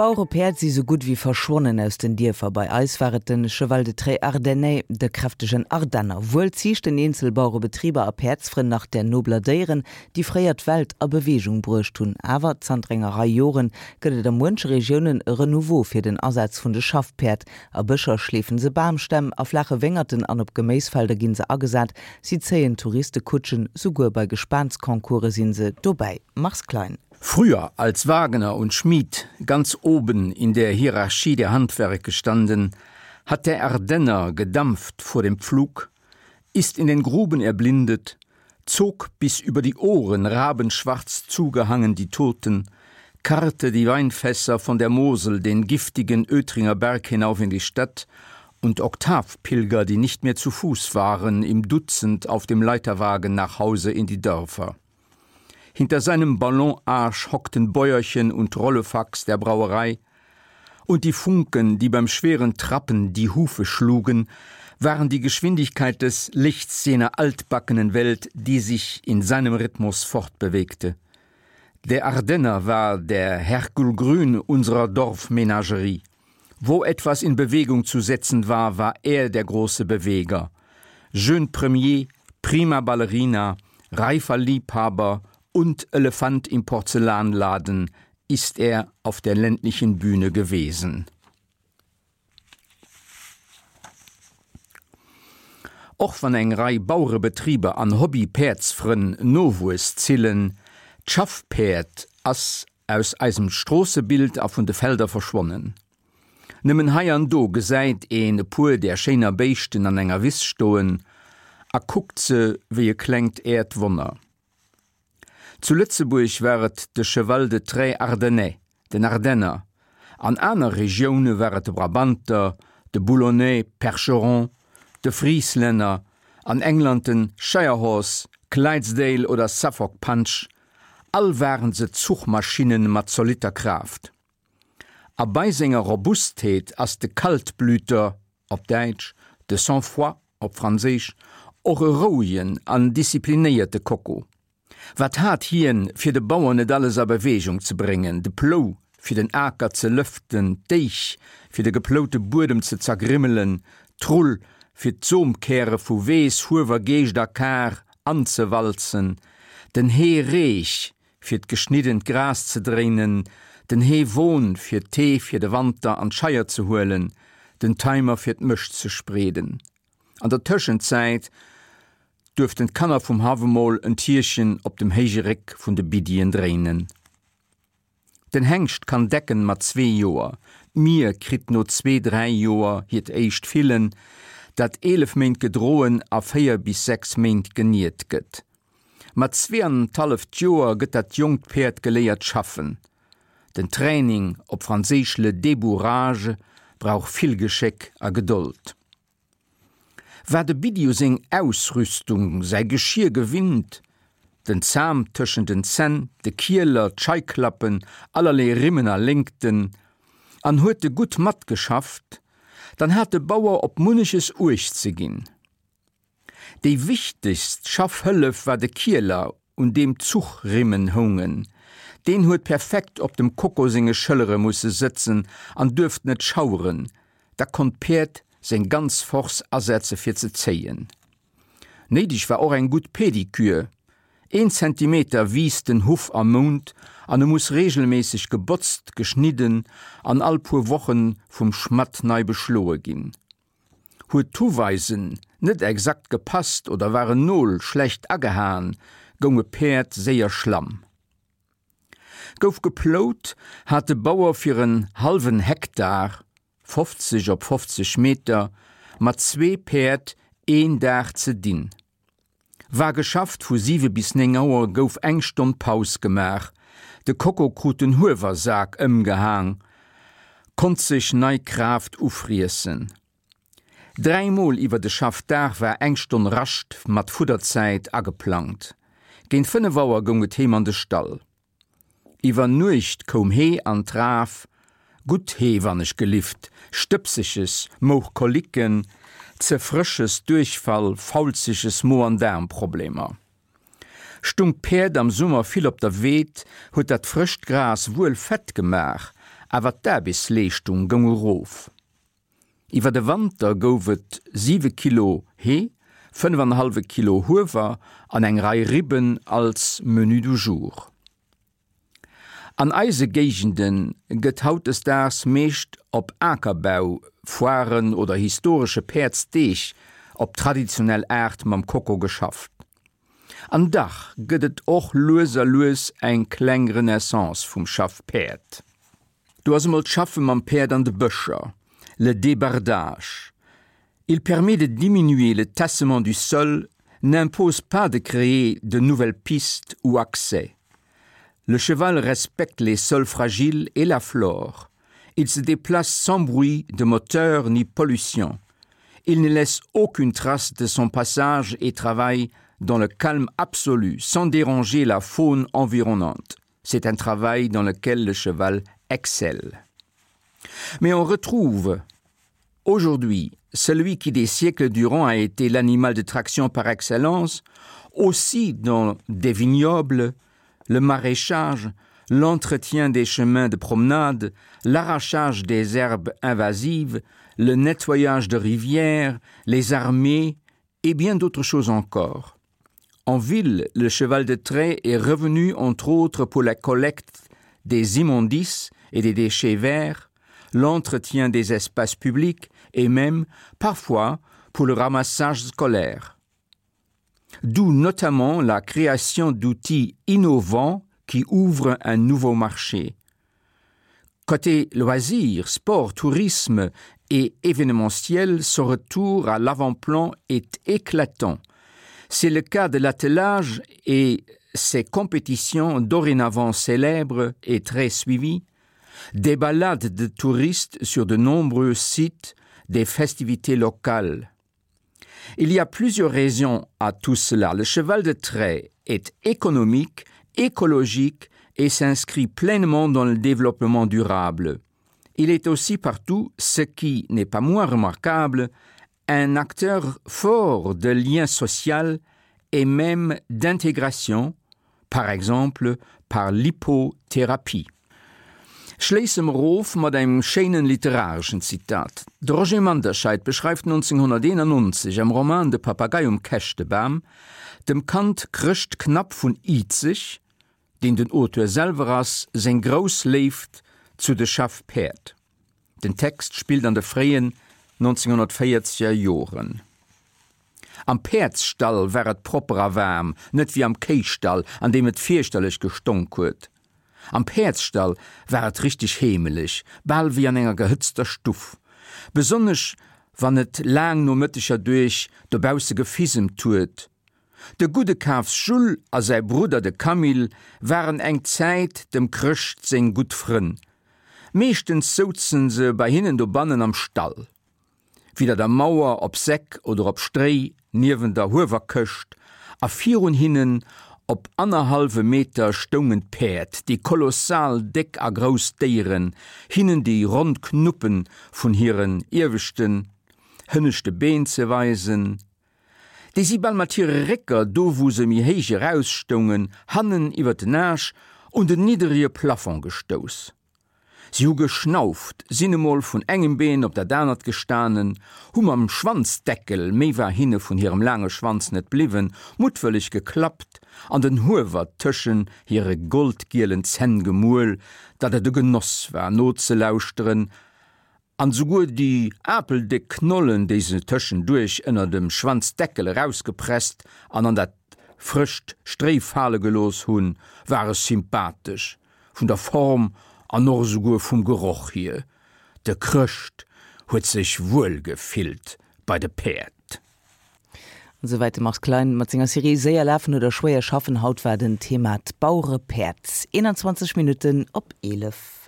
D'Bauerepäerd si sou gutt wéi verschwonnen aus den Dierfer. Bei eis war et den Cheval de Trait Ardennais, de kräftegen Ardenner. Wuel ziichten eenzel Bauerebetriber a Päerdsfrënn nach där nobler Déieren, déi fréier d'Welt a Beweegung bruecht hunn. Awer zanter enger Rei Joren gëtt et a muenche Regiounen e Renouveau fir den Asaz vun de Schaffpäerd. A Bëscher schleefen se Bamstämm, a flaache Wéngerten an op Geméisfelder ginn se agesat. Si zéien Touriste-Kutschen, souguer bei Gespaansconcourse sinn se dobäi. Mars Klein. Früher als Wagner und Schmied ganz oben in der Hierarchie der Handwerke standen, hat der Ardenner gedampft vor dem Pflug, ist in den Gruben erblindet, zog bis über die Ohren rabenschwarz zugehangen die Toten, karrte die Weinfässer von der Mosel den giftigen Ötringer Berg hinauf in die Stadt und Oktavpilger, die nicht mehr zu Fuß waren, im Dutzend auf dem Leiterwagen nach Hause in die Dörfer. Hinter seinem Ballonarsch hockten Bäuerchen und Rollefax der Brauerei, und die Funken, die beim schweren Trappen die Hufe schlugen, waren die Geschwindigkeit des Lichts jener altbackenen Welt, die sich in seinem Rhythmus fortbewegte. Der Ardenner war der Herkul Grün unserer Dorfmenagerie. Wo etwas in Bewegung zu setzen war, war er der große Beweger. Jeune Premier, prima Ballerina, reifer Liebhaber und Elefant im Porzellanladen ist er auf der ländlichen Bühne gewesen. Och wann eng Rei Bauerebetriber an Hobby-Päerdsfrënn Nowuess zillen, d'Schaffpäerd ass aus eisem Stroossebild a vun de Felder verschwonnen. Nëmmen hei an do gesäit een e puer där schéiner Béischten an enger Wiss stoen a kuckt se wéi e klengt Äerdwonner. Zu Lëtzebuerg war et de Cheval de Trait Ardennais, den Ardenner, an aner Regioune war et de Brabanter, de Boulonnais, Percheron, de Frieslänner, an England den Shire Horse, Clydesdale oder Suffolk Punch, all waren se Zuchmaschinnen mat zolitter Kraaft. A bei senger Robustheet ass de Kaltblüter, op Däitsch, de Sang-froid, op Franséisch, och e rouegen an disziplinéierte Koko. Wat hat hien, fir de Bauer net alles a Beweegung ze bréngen, de Plou, fir den Aker ze lëften, d'Éich, fir de geploute Buedem ze zergrimmelen, d'Rull, fir d'Somkäre vu Weess, Huewer, Geescht a Kar anzewalzen, den Heereech, fir d'geschniddent Gras ze dréinen, den Heewon, fir d'Hee fir de Wanter an d'Scheier ze huelen, den Timer, fir d'Mëscht ze spreeden. An der Tëschenzäit duerften d'Kanner vum Haff emol en Tierchen op dem héije Réck vun de Biddien dréinen. Den Hengscht kann decken mat zwee Joer, d'Mier kritt no zwee, dräi Joer hiert éischt Fillen, dat 11 Méint gedroen a 4 bis 6 Méint geniert gëtt. Mat zweeanenthalleft Joer gëtt dat jonkt Päerd geléiert schaffen. Den Training, op Franséisch le débourrage, brauch vill Geschéck a Gedold. War de Biddi u seng Ausrüstung, säi Geschir gewinnt, den Zam tëschent den Zänn, de Kieler, d'Scheiklappen, allerlee Rimmen a Léngten, an huet e gutt matgeschafft, dann hat de Bauer op munneches Uecht ze ginn. Déi wichtegst Schaffhëllef war de Kieler, un deem d'Zuchrimmen houngen. Deen huet perfekt op dem Koko senge Schëllere musse sëtzen an duerft net schaueren, da konnt d'Päerd seng ganz Force asetze fir ze zéien. Néideg war och eng gutt Pedikür. Een Zentimeter wiisst den Huff am Mount an e muss reegelméisseg gebotzt, geschnidden an all puer Woche vum Schmadd nei beschloe ginn. Huet d'Huweisen net exakt gepasst oder war en Nol schlecht agehaen, goung e Päerd séier schlamm. Gouf geplout, hat de Bauer fir en hallwen Hektar, 50 op 50 Meter, mat zwee Päerd een Dag ze dinn. War geschafft, vu 7 bis 9 Auer gouf eng Stonn Paus gemaach, de Koko krut den Huewersak ëmgehaang, konnt sech nei Kraaft ufriessen. Dräimol iwwer de Schaffdag war eng Stonn Rascht mat Fudderzäit ageplangt. Géint 5 Auer goung et heem an de Stall. Iwwer Nuecht koum Hee an d'Raf, gutt Hee wann ech gelift, stëbseges, mouch Kolicken, ze frësches, Duerchfall, faulzeges, Mo an Daarmproblemer. Stung d'Päerd am Summer vill op der Weed, huet dat frëscht Gras wuel fett gemaach, awer d'Aarbechtsleeschtung goung erof. Iwwer de Wanter gouf et siwe Kilo Hee, fënnef an e hallwe Kilo Huewer an eng Rei Ribben als Menu du jour. An eise Géigende gëtt hautdesdaags meescht op Akerbau, Foiren oder historesche Päerdsdeeg op traditionell Aart mam Koko geschafft. An dach gëtt et och lues a lues eng kleng Renaissance vum Schaffpäerd. Do ass emol d'Schaffe mam Päerd an de Bëscher, le débardage. Il permet de diminuer le tassement du sol, n'impose pas de créer de nouvelles pistes ou accès. Le cheval respecte les sols fragiles et la flore. Il se déplace sans bruit de moteur ni pollution. Il ne laisse aucune trace de son passage et travaille dans le calme absolu, sans déranger la faune environnante. C'est un travail dans lequel le cheval excelle. Mais on retrouve aujourd'hui celui qui des siècles durant a été l'animal de traction par excellence, aussi dans des vignobles, le maraîchage, l'entretien des chemins de promenade, l'arrachage des herbes invasives, le nettoyage de rivières, les armées et bien d'autres choses encore. En ville, le cheval de trait est revenu entre autres pour la collecte des immondices et des déchets verts, l'entretien des espaces publics et même, parfois, pour le ramassage scolaire. D'où notamment la création d'outils innovants qui ouvrent un nouveau marché. Côté loisirs, sport, tourisme et événementiel, ce retour à l'avant-plan est éclatant. C'est le cas de l'attelage et ses compétitions dorénavant célèbres et très suivies, des balades de touristes sur de nombreux sites, des festivités locales. Il y a plusieurs raisons à tout cela. Le cheval de trait est économique, écologique et s'inscrit pleinement dans le développement durable. Il est aussi partout, ce qui n'est pas moins remarquable, un acteur fort de lien social et même d'intégration, par exemple par l'hypothérapie. Schléisse mer of mat engem schéinen literareschen Zitat. De Roger Manderscheid beschreift 1991 am Roman De Papagei um Käschtebam dem Kand Chrëscht Knapp vun Izeg, deen den Auteur selwer ass, seng grouss Léift zu de Schaffpäerd. Den Text spillt an de fréien 1940er Joren. Am Päerdsstall war et propper a waarm, net wéi am Kéistall, an deem et fierchterlech gestonk huet. Am Päerdsstall war et richteg heemeleg, bal wéi an enger gehëtzter Stuff. Besonnesch wann et laang Nomëtteger duerch dobausse gefisemt huet. De gudde Kafs Jules a säi Brudder de Camille waren eng Zäit dem Chrëscht seng gutt Frënn. Meeschtens souzen se bei hinnen dobannen am Stall. Widder der Mauer op Säck oder op Stréi niewen der Huewerkëscht a virun hinnen op annerhallwe Meter stoungen d'Päerd, déi kolossal déck a grouss Déieren, hinnen déi ronn Knuppe vun hiren ieweschten, hënneschte Been ze weisen. Déi si bal mat hire Récker, do wou se méi héich erausstoungen, hannen iwwer den Aasch un den nidderege Plafond gestouss. Si hu geschnauft, sinn emol vun engem Been op dat anert gestanen, hu mam Schwanzdeckel, méi war hinne vun hirem laange Schwanz net bliwwen, muttwëlleg geklappt an den Huewer tëschen hire goldgielen Zänn gemuel, datt et e Genoss war nozelauschteren, An souguer déi apeldéck Knollen, déi se tëschenduerch ënner dem Schwanzdeckel erausgepresst an an dat frëscht Stréi fale gelooss hunn, ware sympathesch, vun der Form an och esouguer vum Geroch hier. De Chrëscht huet sech wuel gefillt bei de Päerd. An esouwäit de Mars Klein mat senger Serie Séier lafen oder schwéier schaffen. Haut war den Thema d'Bauerepäerd. 21 Minutten op 11.